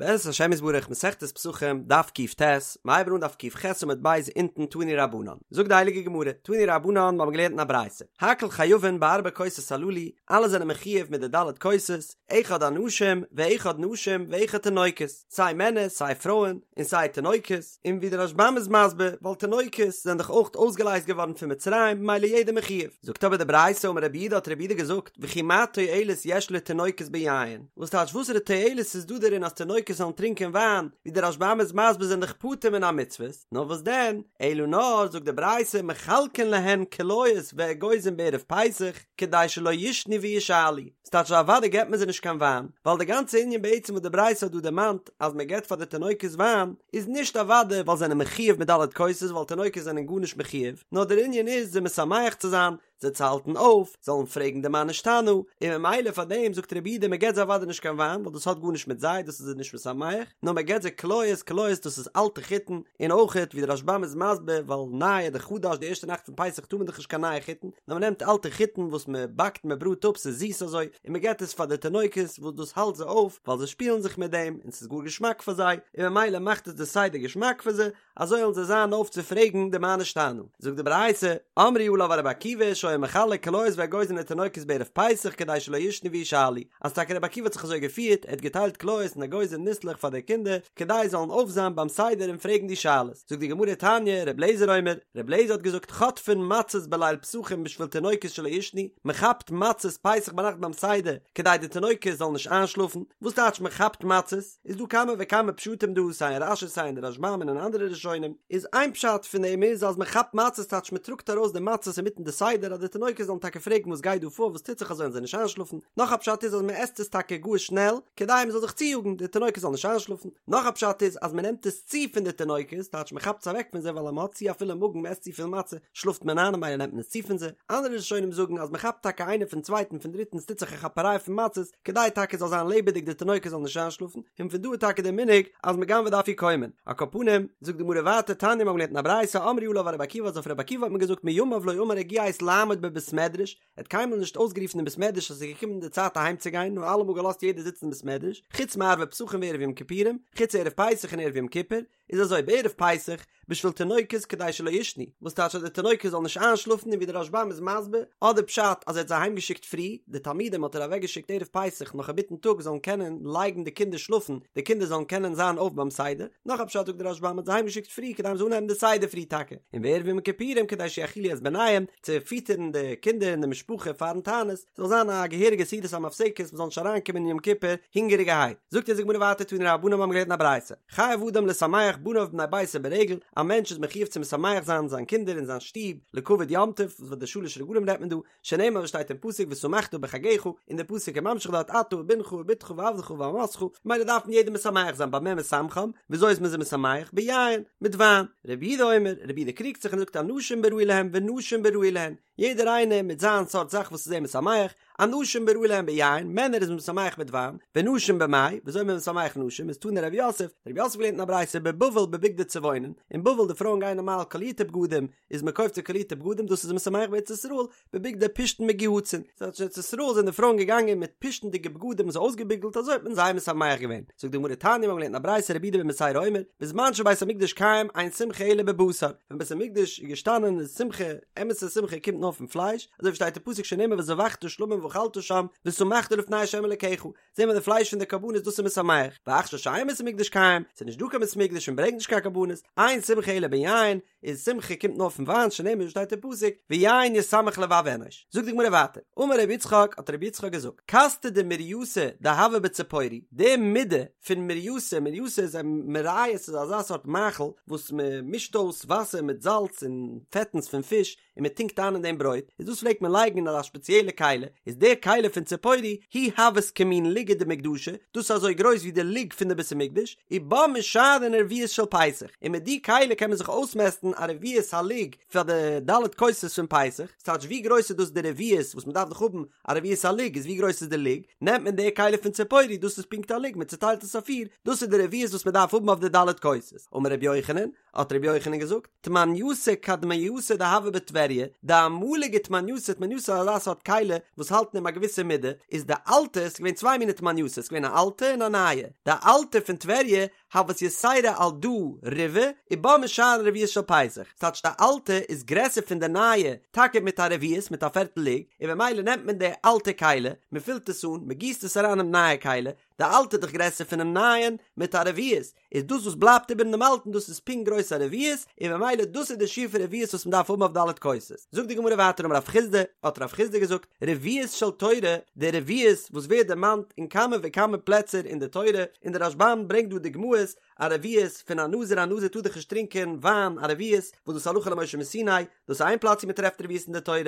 בעזרת השם יתברך מסכת פסחים דף קט, מ'הייבן אן דף קח עמוד ב' אונטן תנו רבנן, זאגט די הייליגע גמרא, תנו רבנן מ'האבן געלערנט אין א ברייתא, הכל חייבין בארבע כוסות הללו, אלע זענען מחיוב מיט די ד' כוסות, אחד אנשים ואחד נשים ואחד תינוקות, סיי מענער סיי פרויען און סיי תינוקות, און ווי דער רשב"ם איז מסביר, ווייל תינוקות זענען דאך אויך אויסגעלייזט געווארן פון מצרים ממילא יעדער מחיוב. זאגט אבער די ברייתא אמר רב יהודה האט רב יהודה געזאגט, וכי מה תועלת יש לתינוקות ביין? וואס טייטש וואסערע תועלת איז דא דערין אז תינוקות זאלן טרינקען וויין, ווי דער רשב"ם איז מסביר זענען דאך פטור מן המצוות, נאר וואס דען, אלא נאר זאגט די ברייתא מחלקין להן קליות ואגוזים בערב פסח כדי שלא ישנו וישאלו, ס'טייטש אז אוודאי געבט מען זיי נישט קיין וויין, ווייל די גאנצע ענין בעצם וואס די ברייתא האט דא דערמאנט אז מען געבט פאר די תינוקות וויין, איז נישט אוודאי ווייל זיי זענען מחיוב מיט ד' כוסות ווייל תינוקות זענען גארנישט מחיוב, נאר דער ענין איז זיי משמח צו זיין, זיי צו האלטן אויף, זאלן פרעגן די מה נשתנה, און ממילא פאר דעם זאגט רב יהודה מען געבט זיי אוודאי נישט קיין וויין ווייל דאס האט גארנישט מיט זיי דאס איז זיי נישט משמח, נאר מען געבט זיי קליות, קליות דאס איז אלטע חיטן, און אויכעט ווי דער רשב"ם איז מסביר ווייל נייע די חדש די ערשטע נאכט פון פסח טאר מען דאך נישט קיין נייע חיטן, נאר מען נעמט אלטע חיטן וואס מען באקט מען בראט אפ ס'איז זיס אזוי, און מען געבט עס פאר די תינוקות וואס דאס האלט זיי אויף ווייל זיי שפילן זיך מיט דעם און ס'איז גאר געשמאק פאר זיי, און ממילא מאכט עס די סדר געשמאק פאר זיי, אזוי וועלן זיי זיין אויף צו פרעגן די מה נשתנה. זאגט די ברייתא, אמרו עליו על רבי עקיבא שהיה מחלק קליות ואגוזים לתינוקות בערב פסח כדי שלא ישנו וישאלו, אז טאקע רבי עקיבא האט זיך אזוי געפירט, ער האט געטיילט קליות און אגוזים ניסלעך פאר די קינדער, כדי זיי זאלן אויף זיין ביים סדר און פרעגן די שאלות. זאגט די גמרא תניא, רבי אליעזר אומר, רבי אליעזר האט געזאגט חוטפין מצות בליל פסחים בשביל תינוקות שלא ישנו, מען כאפט מצות פסח ביינאכט ביים סדר כדי די תינוקות זאלן נישט איינשלאפן, וואס טייטש מען כאפט מצות? איז דא כמה וכמה פשטים דא סיי אין רש"י סיי אין די רשב"ם און אין אנדערע ראשונים, איז איין פשט פון דעם איז אז מען כאפט מצות טייטש מען טראגט ארויס די מצות אינמיטן די סדר אז די תינוקות זאלן טאקע פרעגן וואס גייט דא פאר וואס טוט זיך אזוי און זיי נישט איינשלאפן, נאך א פשט איז אז מען עסט עס טאקע גאר שנעל כדי מען זאל זיך צויאגן די תינוקות זאלן נישט איינשלאפן, נאך א פשט איז אז מען נעמט עס צו פון די תינוקות טייטש מען כאפט עס אוועק פון זיי ווייל אז מען האט צו א פולע מאגן מען עסט צופיל מצה שלאפט מען איין ממילא נעמט מען עס צו פון זיי, אנדערע ראשונים זאגן אז מען כאפט טאקע איינער פון צווייטן פון דריטן עס טוט זיך א כאפעריי פון מצות, כדי טאקע זאל זיין לעבעדיג די תינוקות זאלן נישט איינשלאפן, און פון דא איז טאקע דער מנהג אז מען גנב'עט די אפיקומן. על כל פנים, זאגט די גמרא ווייטער תניא מ'האט געלערנט אין א ברייתא אמרו עליו על רבי עקיבא אז אויף רבי עקיבא האט מען געזאגט מימיו לא אמר הגיעה עת לעמוד בבית מדרש, ער האט קיינמאל נישט אויסגערופן אין בית מדרש אז עס איז געקומען די צייט אהיים צו גיין נאר אלעמאל געלאזט יעדער זיצן אין בית מדרש, חוץ מערבי פסחים וערב יום כיפורים, חוץ ערב פסח און ערב יום כיפור, איז אזוי בערב פסח בשביל תינוקות כדי שלא ישנו, וואס טייטש אז די תינוקות זאלן נישט איינשלאפן און ווי דער רשב"ם איז מסביר, אדער פשט אז ער האט זיי אהיים געשיקט פרי, די תלמידים האט ער אוועק געשיקט ערב פסח נאך אינמיטן טאג זאלן קענען לייגן די קינדער שלאפן, די קינדער זאלן קענען זיין אויף ביים סדר, נאך א פשט זאגט דער רשב"ם האט זיי אהיים געשיקט פרי כדי מ'זאל אנהייבן די סדר פרי טאקע, און בערב יום כיפורים כדי שיאכילו את בניהם, צו פיטערן די קינדער און די משפחה פארן תענית, זאל זיין א געהעריגע סעודת המפסקת מ'זאל נישט אריינקומען אין יום כיפור הונגעריגערהייט. זאגט אונז די גמרא ווייטער תנו רבנן מ'האבן געלערנט אין א ברייתא, חייב אדם לשמח בניו ובני ביתו ברגל, א מענטש איז מחיוב צו משמח זיין זיין קינדער און זיין שטוב לכבוד יום טוב, וואס די שלש רגלים רעדט מען דא, שנאמר וואס שטייט אין פסוק ושמחת בחגך, און די פסוק איז ממשיך דארט אתה ובנך ובתך ועבדך ואמתך, ממילא דארף מען יעדעם משמח זיין במה משמחם, וויאזוי איז מען זיי משמח? ביין, מיט וויין. רבי יהודה אומר, רבי יהודה קריגט זיך און זאגט אנשים בראוי להם ונשים בראוי להן, יעדער איינער מיט זיין סארט זאך וואס איז אים משמח, אנשים בראוי להם ביין, מענער איז מען משמח מיט וויין, ונשים במאי, וויאזוי איז מען משמח נשים, איז תנא רב יוסף, רב יוסף געלערנט אין א ברייתא בבבל בבגדי צבעונין, אין בבל די פרויען גייען נארמאל קאלירטע בגדים, איז מען קויפט זיי קאלירטע בגדים דאס איז משמח בארץ ישראל, בבגדי פשתן מגוהצין, ס'טייטש אין ארץ ישראל זענען די פרויען געגאנגען מיט פשתנ'דיגע בגדים אזוי אויסגעביגלט אזוי האט מען זיי משמח געווען, זאגט די גמרא תניא מיר האבן געלערנט אין א ברייתא רבי יהודה בן בתירא אומר, בזמן שבית המקדש קיים אין שמחה אלא בבשר, ווען בית המקדש איז געשטאנען איז שמחה, אמת'ע שמחה קומט נאר פון פלייש, אזוי ווי שטייט אין פסוק שנאמר וזבחת שלמים ואכלת שם ושמחת לפני ה' אלקיך, זעהן מיר די פלייש פון די קרבנות דאס איז משמח, ועכשיו שאין בית המקדש קיים, ס'איז נישט דא קיין בית המקדש און ברענגט נישט קיין קרבנות, אין שמחה אלא ביין, איז שמחה קומט נאר פון וויין שנאמר ווי שטייט אין פסוק ויין ישמח לבב אנוש, זאגט די גמרא ווייטער, אמר רבי יצחק האט רבי יצחק געזאגט, כסתא דמורייסא דהוה בציפורי, די מידה פון מורייסא, מורייסא איז א מרייעס איז אזא סארט מאכל וואס מען מישט אויס וואסער מיט זאלץ און פעטנס פון פיש און מען טונקט איין אין דעם ברויט, איז דאס פלעגט מען לייגן אין אזא שפעציעלע כלי, איז די כלי פון ציפורי היא הוות כמין לוגא דמקדשא, דאס איז אזוי גרויס ווי די לוג פון די בית המקדש, ובה משערין רביעית של פסח, און מיט די כלי קען מען זיך אויסמעסטן א רביעית הלוג פאר די ד' כוסות פון פסח, ס'טייטש ווי גרויס איז דאס די רביעית וואס מען דארף דאך האבן א רביעית הלוג איז ווי גרויס איז די לוג, נעמט מען די כלי פון ציפורי דאס איז פונקט א לוג מען צוטיילט עס אויף פיר, דאס איז די רביעית וואס מען דארף האבן אויף די ד' כוסות, אמר רבי יוחנן, האט רבי יוחנן געזאגט, תמנייתא קדמייתא דהוה בטבריה, דאמלו. אמאליגע תמנייתא, תמנייתא איז אזא סארט כלי וואס האלט אין אים א געוויסע מידה, איז די אלטע, ס'איז געווען צוויי מיני תמנייתא, ס'איז געווען א אלטע און א נייע, די אלטע פון טבריה הות יתירה על דא ריבעא ובה משערין רביעית של פסח, ס'טייטש די אלטע איז גרעסער פון די נייע טאקע מיט א רביעית מיט א פערטל לוג, און במילא נעמט מען די אלטע כלי, מען פילט עס אן, מען גיסט עס אריין אינעם נייע כלי, די אלטע איז דאך גרעסער פונעם נייען מיט א רביעית, איז דאס וואס בלייבט איבער אין דעם אלטן דאס איז פונקט גרויס א רביעית, און במילא דאס איז די שיעור פון רביעית וואס מען דארף האבן אויף ד' כוסות. זאגט די גמרא ווייטער אמר רב חסדא, האט רב חסדא געזאגט, רביעית של תורה, די רביעית וואס ווערט דערמאנט אין כמה וכמה פלעצער אין די תורה, און די רשב"ם ברענגט דא דוגמאות, א רביעית פון א נזיר, א נזיר טאר דאך נישט טרינקען וויין, א רביעית וואס דאס הלכה למשה מסיני, דאס איז איין פלאץ ווי מען טרעפט רביעית אין די תורה,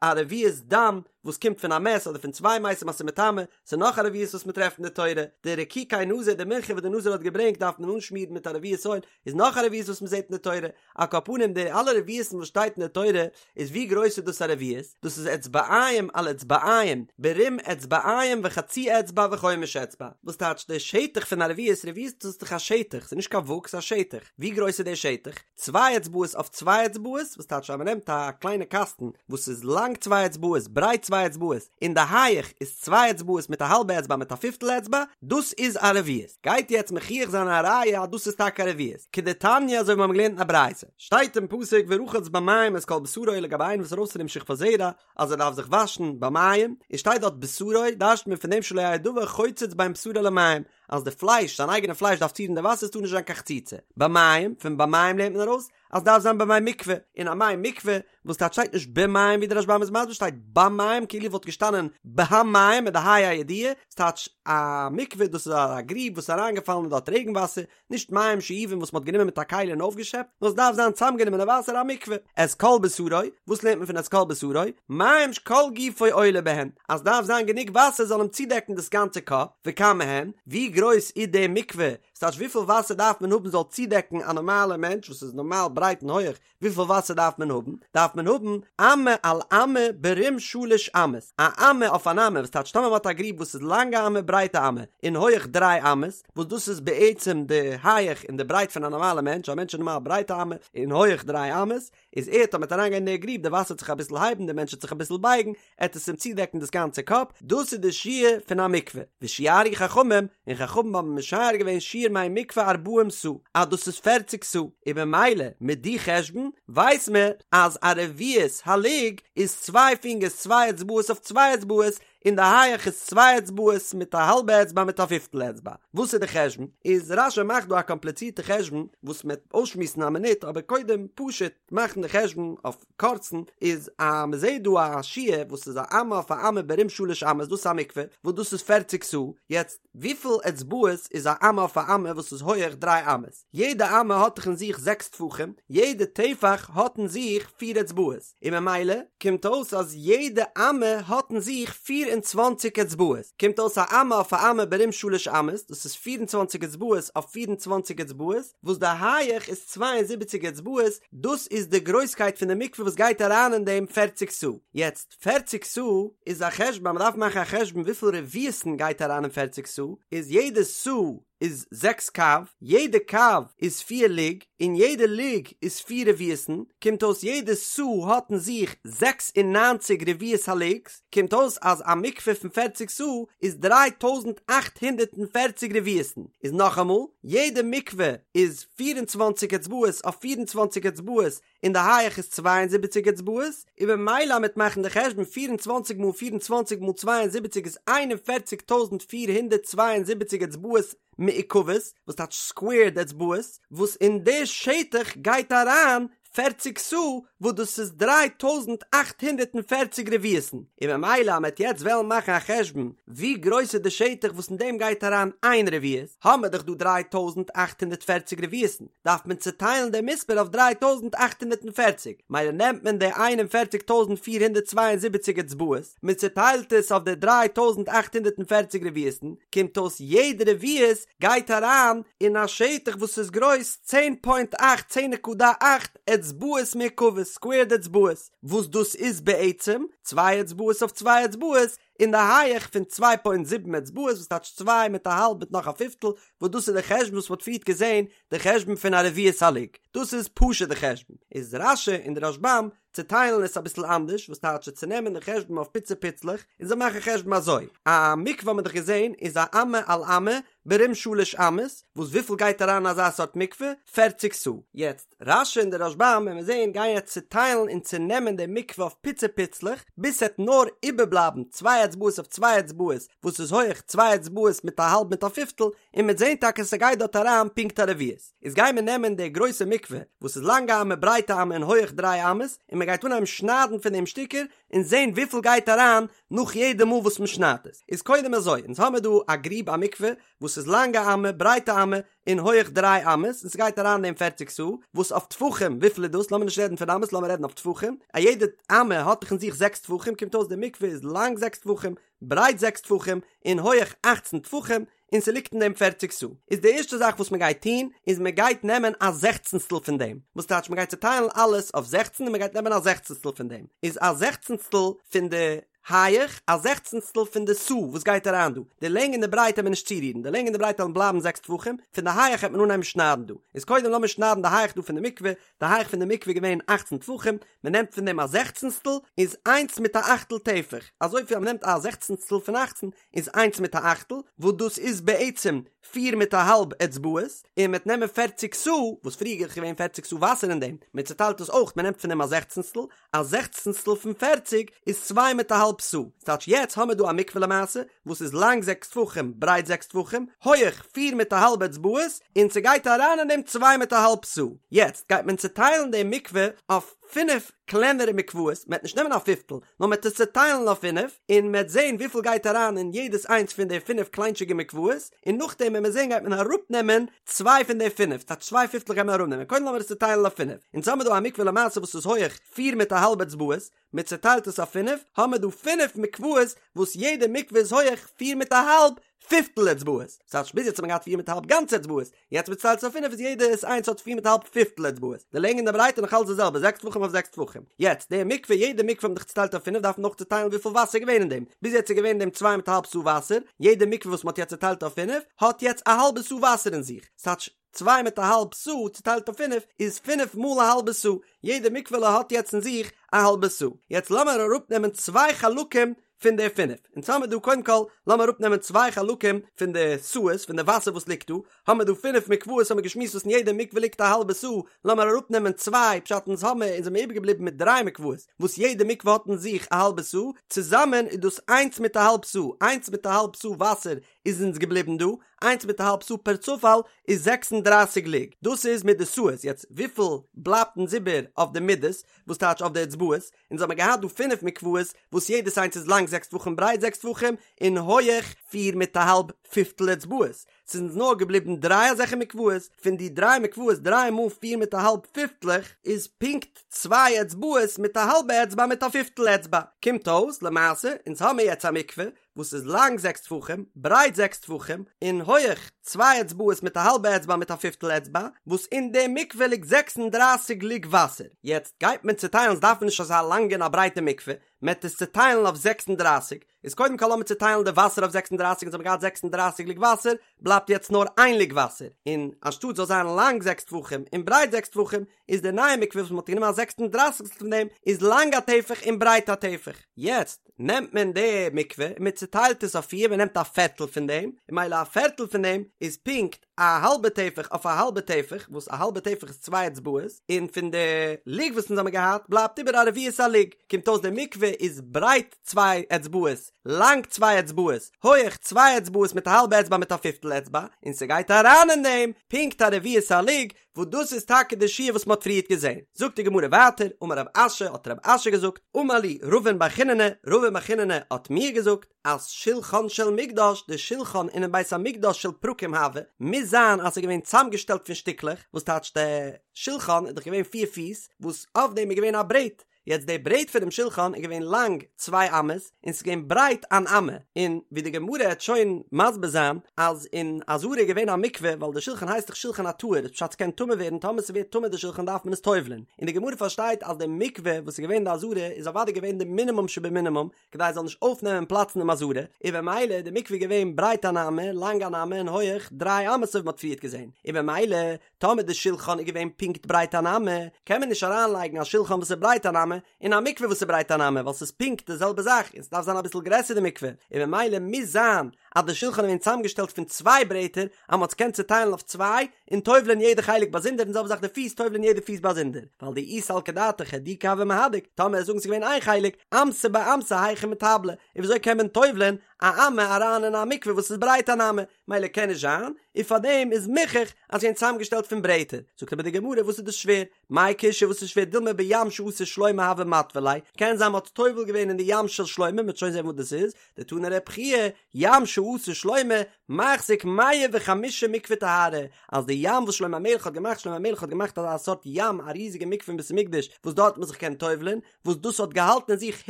א רביעית דם וואס קומט פון א מת אדער פון צוויי מתים אז ס'איז מטמא, ס'איז נאך א רביעית וואס מ'טרעפט אין די תורה, די רקיקי נזיר, די מנחה וואס די נזיר האט געברענגט דארף מען אנשמירן מיט א רביעית אויל, איז נאך א רביעית וואס מ'זעט אין די תורה, על כל פנים די אלע רביעית'ן וואס שטייט אין די תורה, איז ווי גרויס איז דאס א רביעית? דאס איז אצבעיים על אצבעיים, ברום אצבעיים וחצי אצבע וחומש אצבע, וואס טייטש די שטח פון א רביעית, רביעית דאס איז דאך א שטח, ס'איז נישט קיין וואג ס'איז א שטח, ווי גרויס איז די שטח? צוויי אצבעות אויף צוויי אצבעות, וואס טייטש אז מ'נעמט א קליינע קאסטן וואס איז לאנג צוויי אצבעות, ברייט צוויי אצבעות, און די הייעך איז צוויי אצבעות מיט א האלבע אצבע מיט א פיפטל אצבע, דאס איז א רביעית. גייט יעצט מוכיח זיין א ראיה אז דאס איז טאקע א רביעית. כדתניא אזוי ווי מיר האבן געלערנט אין א ברייתא. שטייט אין פסוק ורחץ במים את כל בשרו לגבי איינער וואס איז ארויס פון דעם שכבת זרע אז ער דארף זיך וואשן במים, און שטייט דארט בשרו, דרש'ט מען פון דעם שלא יהא דבר חוצץ בין בשרו למים, אז די פלייש, זיין אייגענע פלייש דארף צורירן די וואסער, עס טאר נישט זיין קיין חציצה. במים, פון במים לערנט מען ארויס, אז דארף זיין במי מקווה, אין א מי מקווה, וואס טייטש שטייט נישט במים ווי די רשב"ם איז מסביר שטייט במים כאילו וואלט געשטאנען בהמים מיט די ה' הידיעה, ס'טייטש א מקווה דאס איז א גריב וואס איז אריינגעפאלן אין דארט רעגן וואסער, נישט מים שאובים וואס מ'האט גענומען מיט א כלי און אויפגעשעפט, נאר עס דארף זיין צאמגענומענע וואסער א מקווה. את כל בשרו, וואס לערנט מען פון את כל בשרו? מים שכל גופו עולה בהן, אז דארף זיין גענוג וואסער זאל אים צודעקן דאס גאנצע קאפ, וכמה הן, ווי גרויס איז די מקווה, ס'טייטש וויפיל וואסער דארף מען האבן זאל צודעקן א נארמאלע מענטש וואס איז נארמאל ברייט און הויעך, וויפיל וואסער דארף מען האבן? דארף מען האבן אמה על אמה ברום שלש אמות, א אמה אויף אן אמה, וואס טייטש טאמער מ'האט א גריב וואס איז לאנג א אמה ברייט א אמה און הויעך דריי אמות, וואס דאס איז בעצם די הייעך און די ברייט פון א נארמאלע מענטש, א מענטש איז נארמאל ברייט א אמה און הויעך דריי אמות, איז ער טאמער וועט אריינגיין אין די גריב די וואסער וועט זיך אביסל הייבן די מענטש וועט זיך אביסל בייגן, עט עס אים צודעקן דאס גאנצע קאפ, דאס איז די שיעור פון א מקווה, ושיערו חכמים, און חכמים האבן משער געווען שיעור מי מקווה ארבעים סאה, אז דאס איז פערציג סאה, און במילא מיט די חשבון ווייס מען אז א רביעית הלוג איז צוויי פינגערס צוויי אצבעות אויף צוויי אצבעות, און די הייעך איז צוויי אצבעות מיט א האלבע אצבע מיט א פיפטל אצבע. וואס איז די חשבון? איז רש"י מאכט דא א קאמפליצירטע חשבון וואס מ'עט אויסשמועסן א מינוט, אבער קודם פשוט מאכן די חשבון אויף קורצן, איז אז מ'זעט דא א שיעור וואס איז א אמה אויף א אמה ברום שלש אמות דאס איז א מקווה וואס דאס איז פערציג סאה, יעצט וויפיל אצבעות איז א אמה אויף א אמה וואס איז הויעך דריי אמות? יעדע אמה האט דאך אין זיך זעקס טפחים, יעדע טפח האט אין זיך פיר אצבעות, און ממילא קומט אויס אז יעדע אמה האט אין זיך 24 אצבעות, קומט אויס א אמה אויף א אמה ברום שלש אמות, דאס איז 24 אצבעות אויף 24 אצבעות, וואס די הייעך איז 72 אצבעות, דאס איז די גרויסקייט פון די מקווה וואס גייט אריין אין דעם פערציג סאה. יעצט, פערציג סאה איז א חשבון אז מ'דארף מאכן א חשבון וויפיל רביעית'ן גייט אריין אין פערציג סאה, איז יעדע סאה איז זעקס קב, יעדע קב איז פיר לוג, און יעדע לוג איז פיר רביעית'ן, קומט אויס יעדע סאה האט אין זיך 96 רביעית הלוג'ס, קומט אויס אז א מקווה פון פערציג סאה איז 3840 רביעית'ן, איז נאכאמאל, יעדע מקווה איז 24 אצבעות אויף 24 אצבעות און די הייעך איז 72 אצבעות, און במילא מ'עט מאכן די חשבון 24 מאל 24 מאל 72 איז 41472 אצבעות מעוקבות, וואס טייטש סקווערד אצבעות, וואס אין די שטח גייט אריין פערציג סאה וואס דאס איז 3840 רביעית'ן, און במילא אז מ'עט יעצט וועלן מאכן א חשבון ווי גרויס איז די שטח וואס אין דעם גייט אריין איין רביעית, האמער דאך דא 3840 רביעית'ן, דארף מען צוטיילן דעם מספר אויף 3840, מילא נעמט מען די 41472 אצבעות, מען צוטיילט עס אויף די 3840 רביעית'ן, קומט אויס יעדע רביעית גייט אריין אין א שטח וואס איז גרויס צען פוינט אכט, צען נקודה אכט, אצבעות מעוקבות, סקווערד אצבעות, וואס דאס איז בעצם צוויי אצבעות אויף צוויי אצבעות, אין די הייעך פון צוויי פוינט זיבן אצבעות וואס טייטש צוויי מיט א האלב מיט נאך א פיפטל, וואס דאס איז די חשבון וואס מ'האט פריערט געזען, די חשבון פון א רביעית הלוג, דאס איז פשוט די חשבון, איז רש"י און די רשב"ם. צעטיילן עס אביסל אנדערש, וואס טייטש צו צענעמען די חשבון אויף פיצי פיצלעך, און זיי מאכן חשבון אזוי, א מקווה האט מען דאך געזען איז א אמה על אמה ברום שלש אמות, וואס וויפיל גייט אריין אין אזא סארט מקווה? פערציג סאה. יעצט, רש"י און די רשב"ם וועלן מיר זען גייען יעצט צעטיילן און צענעמען די מקווה אויף פיצי פיצלעך, ביז ס'עט נאר איבערבלייבן צוויי אצבעות אויף צוויי אצבעות, וואס איז הויעך צוויי אצבעות מיט א האלב מיט א פיפטל, און מ'עט זען טאקע ס'גייט דארט אריין פונקט א רביעית. איז גייען מיר נעמען די גרויסע מקווה וואס איז לאנג א אמה ברייט א אמה און הויעך דריי אמות, און מ'גייט אנהייבן שניידן פון דעם שטיקער, און זען וויפיל גייט אריין נאך יעדע מאל וואס מ'שניידט עס. איז קודם אזוי, אונז האמיר דא א גריב א מקווה וואס איז לאנג א אמה ברייט א אמה און הויעך דריי אמות, און ס'גייט אריין אין דעם פערציג סאה, וואס אויף טפחים וויפיל איז דאס? לאמיר נישט רעדן פון אמות לאמיר רעדן אויף טפחים, א יעדע אמה האט דאך אין זיך זעקס טפחים קומט אויס די מקווה איז לאנג זעקס טפחים, ברייט זעקס טפחים, און הויעך אכצן טפחים, און ס'ליגט אין דעם פערציג סאה. איז די ערשטע זאך וואס מ'גייט טון, איז מ'גייט נעמען א זעכצנסטל פון דעם. וואס טייטש מ'גייט צוטיילן אלעס אויף זעכצן און מ'גייט נעמען א זעכצנסטל פון דעם. איז א זעכצנסטל פון די הייעך, א זעכצנסטל פון די סאה וואס גייט אריין דא. די לענג און די ברייט העט מען נישט צורירן, די לענג און די ברייט וועלן בלייבן זעקס טפחים, פון די הייעך העט מען אנהייבן שניידן דא. איז קודם לאמיר שניידן די הייעך דא פון די מקווה, די הייך פון די מקווה איז געווען אכצן טפחים, מען נעמט פון דעם א זעכצנסטל, איז איינס מיט א אכטל טפח, אזויפיל אז מען נעמט א זעכצנסטל פון אכצן, איז איינס מיט א אכטל, וואס דאס איז בעצם פיר מיט א האלב אצבעות, און מען וועט נעמען פערציג סאה, וואס פריער איז געווען פערציג סאה וואסער אין דעם, מען צעטיילט עס אויך, מען נעמט פון דעם א זעכצנסטל, א זעכצנסטל פון פערציג איז צוויי מיט א האלב סאה, ס'טייטש יעצט האמיר דא א מקווה למעשה וואס איז לאנג זעקס טפחים ברייט זעקס טפחים הויעך פיר מיט א האלב אצבעות און ס'גייט אריין אין דעם צוויי מיט א האלב סאה, יעצט גייט מען צוטיילן די מקווה אויף פינף קלענערע מקוואות, מ'עט נישט נעמען א פיפטל נאר מ'עט עס צוטיילן אויף פינף און מ'עט זען וויפיל גייט אריין אין יעדעס איינס פון די פינף קליינטשיגע מקוואות, און נאכדעם ווען מיר זען גייט מען אראפנעמען צוויי פון די פינף, ס'טייטש צוויי פיפטלעך גייט מען אראפנעמען, קודם לאמיר עס צוטיילן אויף פינף, אונז האמיר דא א מקווה למעשה וואס איז הויעך פיר מיט א האלב אצבעות, מען צוטיילט עס אויף פינף, האמיר דא פינף מקוואות וואס יעדע מקווה איז הויעך פיר מיט א האלב פיפטל אצבעות, ס'טייטש ביז יעצט האט מען געהאט פיר מיט א האלב גאנצע אצבעות, יעצט מען צוטיילט עס אויף פינף איז יעדע איינס האט פיר מיט א האלב פיפטל אצבעות, די לענג און די ברייט איז נאך אלץ די זעלבע זעקס טפחים אויף זעקס טפחים, יעצט די מקווה יעדע מקווה האט מען דאך צוטיילט אויף פינף דארף מען אויך צוטיילן וויפיל וואסער איז געווען אין דעם, ביז יעצט איז געווען אין דעם צוויי מיט א האלב סאה וואסער, יעדע מקווה וואס מען האט יעצט צוטיילט אויף פינף האט יעצט א האלבע סאה וואסער אין זיך, ס'טייטש צוויי מיט א האלב סאה צוטיילט אויף פינף איז פינף מאל א האלבע סאה, יעדע מקווה'לע האט יעצט אין זיך א האלבע סאה, יעצט לאמיר אראפנעמען צוויי חלקים פון די פינף, אונז האמיר דא קודם כל לאמיר אראפנעמען צוויי חלקים פון די סאות פון די וואסער וואס ליגט דא, האמיר דא פינף מקוואות האמיר געשמועסט וואס אין יעדע מקווה ליגט א האלבע סאה, לאמיר אראפנעמען צוויי, פשט אונז האמיר אונז זעמיר איבערגעבליבן מיט דריי מקוואות וואס יעדע מקווה האט אין זיך א האלבע סאה, צוזאמען איז דאס איינס מיט א האלב סאה, איינס מיט א האלב סאה וואסער איז אונז געבליבן דא, איינס מיט א האלב סאה פערצופאל איז 36 לוג, דאס איז מיט די סאות, יעצט וויפיל בלייבט אונז איבער אויף די מידות, וואס טייטש אויף די אצבעות, אונז האמיר געהאט דא פינף מקוואות וואס יעדעס איינס איז לאנג זעקס טפחים ברייט זעקס טפחים און הויעך פיר מיט א האלב פיפטל אצבעות, ס'איז אונז נאר געבליבן דריי אזעלכע מקוואות, פון די דריי מקוואות דריי מאל פיר מיט א האלב פיפטלעך איז פונקט צוויי אצבעות מיט א האלבע אצבע מיט א פיפטל אצבע, קומט אויס למעשה אונז האמיר יעצט א מקווה וואס איז לאנג זעקס טפחים, ברייט זעקס טפחים, און הויעך צוויי אצבעות מיט א האלבע אצבע מיט א פיפטל אצבע, וואס אין די מקווה ליגט 36 לוג וואסער. יעצט גייט מען צוטיילן, ס'דארף מען נישט אזא לאנגע און א ברייטע מקווה, מען וועט עס צוטיילן אויף 36, איז קודם כל לאמיר צוטיילן די וואסער אויף 36, אונז האבן געהאט 36 לוג וואסער, בלייבט יעצט נאר איין לוג וואסער, און אנשטאט זאל זיין לאנג זעקס טפחים און ברייט זעקס טפחים, איז די נייע מקווה וואס מען האט גענומען א זעקס און דרייסיגסטל פון דעם איז לאנג א טפח און ברייט א טפח. יעצט נעמט מען די מקווה און מען צוטיילט עס אויף פיר, מען נעמט א פערטל פון דעם, און ממילא א פערטל פון דעם איז פונקט א האלבע טפח אויף א האלבע טפח, וואס א האלבע טפח איז צוויי אצבעות, און פון די לוג וואס אונז האבן געהאט בלייבט איבער א רביעית א לוג, קומט אויס די מקווה איז ברייט צוויי אצבעות, לאנג צוויי אצבעות, הויעך צוויי אצבעות מיט א האלבע אצבע מיט א פיפטל אצבע, און ס'גייט אריין אין דעם פונקט א רביעית א לוג, וואס דאס איז טאקע די שיעור וואס מ'האט פריערט געזען. זאגט די גמרא ווייטער, אמר רב אשי, האט רב אשי געזאגט, אמר לי רבין בר חיננא, רבין בר חיננא האט מיר געזאגט, אז שולחן של מקדש, די שולחן אינעם בית המקדש של פרקים הוה, מוז זיין אז ס'איז געווען צאמגעשטעלט פון שטיקלעך, וואס טייטש די שולחן איז דאך געווען פיר פיס, וואס אויף דעם איז געווען א ברעט, יעצט די ברעט פונעם שולחן איז געווען לאנג צוויי אמות און ס'איז געווען ברייט אן אמה, און ווי די גמרא העט שוין מסביר זיין אז אין עזרה איז געווען א מקווה ווייל די שולחן הייסט דאך שולחן הטהור איז פשט ס'קען טמא ווערן טאמער ס'ווערט טמא די שולחן דארף מען עס טובל'ען, און די גמרא פארשטייט אז די מקווה וואס איז געווען אין די עזרה איז אוודאי געווען די מינימום שבמינימום כדי עס זאל נישט אויפנעמען פלאץ אינעם עזרה, און במילא איז די מקווה געווען ברייט אן אמה, לאנג אן אמה און הויעך דריי אמות אזוי ווי מ'האט פריערט געזען, און במילא טאמער די שולחן איז געווען פונקט ברייט אן אמה, קען מען נישט אריינלייגן א שולחן וואס איז ברייט אן אמה. אמה, און א מקווה וואס איז ברייט אן אמה, ווייל ס'איז פונקט די זעלבע זאך, און ס'דארף זיין אביסל גרעסער די מקווה, און ממילא מוז זיין אז די שולחן איז געווען צוזאמגעשטעלט פון צוויי ברעטער, אז מ'האט עס געקענט צוטיילן אויף צוויי, און טובל'ען יעדע חלק באזונדער, און זעלבע זאך די פיס, טובל'ען יעדע פיס באזונדער, ווייל דאי סלקא דעתך הידוקי הוה מהדק, טאמער זאגן ס'איז געווען איין חלק, אמתא באמתא היכי מיטבלא, און וויאזוי קען מען טובל'ען א אמה אריין אין א מקווה וואס איז ברייט אן אמה, מילא קען נישט זיין, און פארדעם איז מוכח אז ס'איז געווען צוזאמגעשטעלט פון ברעטער, זאגט אבער די גמרא וואס איז דאס שווער, מאי קושיא וואס איז שווער דילמא בים שעשה שלמה הוה מטביל ליה, קען זיין מ'האט טובל געווען אין די ים של שלמה, מ'וועט שוין זען וואס דאס איז, דתני רב חייא, ים שעשה שלמה, מחזיק מאה וחמישים מקווה טהרה, אז די ים וואס שלמה המלך האט געמאכט, שלמה המלך האט געמאכט אזא סארט ים, א ריזיגע מקווה אין בית המקדש, וואס דארט האט מען זיך געקענט טובל'ען, וואס דאס האט געהאלטן אין זיך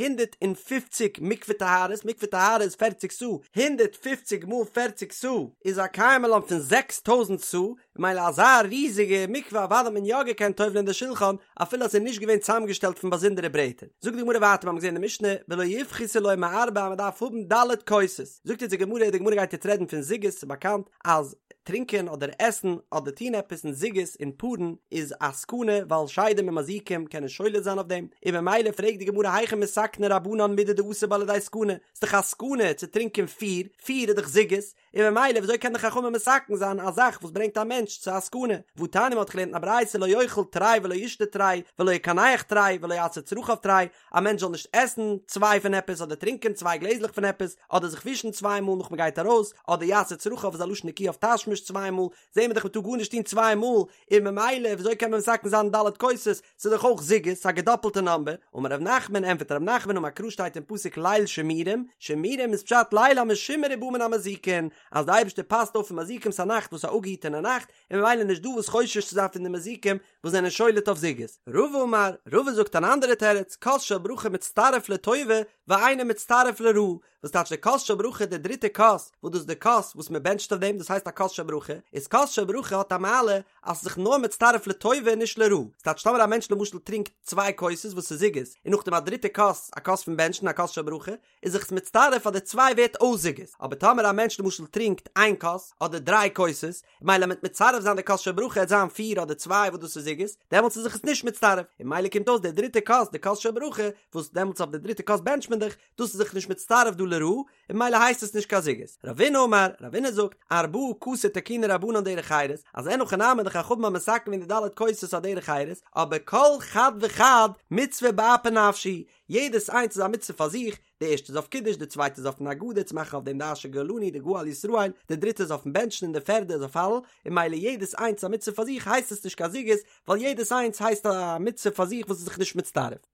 150 מקווה טהרות, מקווה טהרה איז פערציג סאה, 150 מאל פערציג סאה איז א קיימא לן פון 6000 סאה, ממילא אזא ריזיגע מקווה אוודאי האט מען יא געקענט טובל'ען די שולחן אפילו אז ס'איז נישט געווען צוזאמגעשטעלט פון באזונדערע ברעטער. זאגט די גמרא ווייטער מיר האבן געזען אין די משנה ולא יפחתו לו מארבע אז מען דארף האבן ד' כוסות, זאגט אונז די גמרא, די גמרא גייט יעצט רעדן פון זוגות, ס'איז באקאנט אז טרינקען אדער עסן אדער טון עפעס אין זוגות אין פארן איז א סכנה ווייל שדים און מזיקים קענען שולט זיין אויף דעם, און ממילא פרעגט די גמרא היכי מתקני רבנן מידי דאתי בה לידי סכנה, ס'איז דאך א סכנה צו טרינקען פיר, פיר איז דאך זוגות, און ממילא וויאזוי קען די חכמים מתקן זיין א זאך וואס ברענגט א מענטש צו א סכנה? והתניא מ'האט געלערנט אין א ברייתא לא יאכל תרי ולא ישתה תרי ולא יקנח תרי ולא יעשה צרכיו תרי, א מענטש זאל נישט עסן צוויי פון עפעס אדער טרינקען צוויי גלעזלעך פון עפעס אדער זיך ווישן צוויי מאל נאך מ'גייט ארויס אדער יעשה צרכיו איז א לשון נקי אויף תשמיש צוויי מאל, זעהן מיר דאך מ'טאר גארנישט טון צוויי מאל, און ממילא וויאזוי קען מען מתקן זיין ד' כוסות, ס'איז דאך אויך זוגות, ס'איז א געדאפלטע נאמבער, אמר ר' נחמן, ענטפערט ר' נחמן אמר קרא שטייט אין פסוק ליל שמורים, שמורים איז פשט ליל המשומר ובא מן המזיקין, אז די אייבערשטער פאסט אויף פון מזיקים ס'איז א נאכט וואס איז א אפגעהיטענע נאכט, און ממילא נישט דא וואס חושש צו זיין פון די מזיקים וואס זענען שולט אויף זוגות. רבא אמר, רבא זאגט אן אנדערע תירוץ, כוס של ברכה מצטרף לטובה ואינו מצטרף לרעה, וואס טייטש די כוס של ברכה די דריטע כוס, וואס דאס איז די כוס וואס מען בענטשט אויף דעם, דאס הייסט א כוס של ברכה, איז כוס של ברכה האט א מעלה אז ס'איז זיך נאר מצטרף לטובה און נישט לרעה, ס'טייטש טאמער א מענטש למשל טרינקט צוויי כוסות וואס איז זוגות, און נאכדעם א דריטע כוס, א כוס פון בענטשן, א כוס של ברכה, איז זיך עס מצטרף אז די צוויי ווערט אויס זוגות, אבער טאמער א מענטש למשל טרינקט איין כוס, אדער דריי כוסות, מילא מ'וועט מצרף זיין די כוס של ברכה עט זיין פיר אדער צוויי וואס דאס איז זוגות, דעמאלטס איז זיך עס נישט מצטרף, און מילא קומט אויס די דריטע כוס, די כוס של ברכה, וואס דעמאלטס אויף די דריטע כוס בענטשט מען דאך, דאס איז זיך נישט מצטרף דא לרעה, און מילא הייסט עס נישט קיין זוגות. רבינא אמר, רבינא זאגט, ארבעה כסי תקינו רבנן דרך חירות, אז אין הכי נמי די חכמים האבן מתקן געווען די ד' כוסות א דרך חירות, אבער כל חד וחד מצוה באפי נפשיה, יעדעס איינס איז א מצוה פאר זיך, די ערשטע איז אויף קידוש, די צווייטע איז אויפן הגדה צו מאכן אויף דעם די אשר גאלנו די גאל ישראל, די דריטע איז אויפן בענטשן און די פערדע איז אויף הלל, און מילא יעדעס איינס איז א מצוה פאר זיך הייסט עס נישט קיין זוגות, ווייל יעדעס איינס הייסט א מצוה פאר זיך וואס איז זיך נישט מצטרף.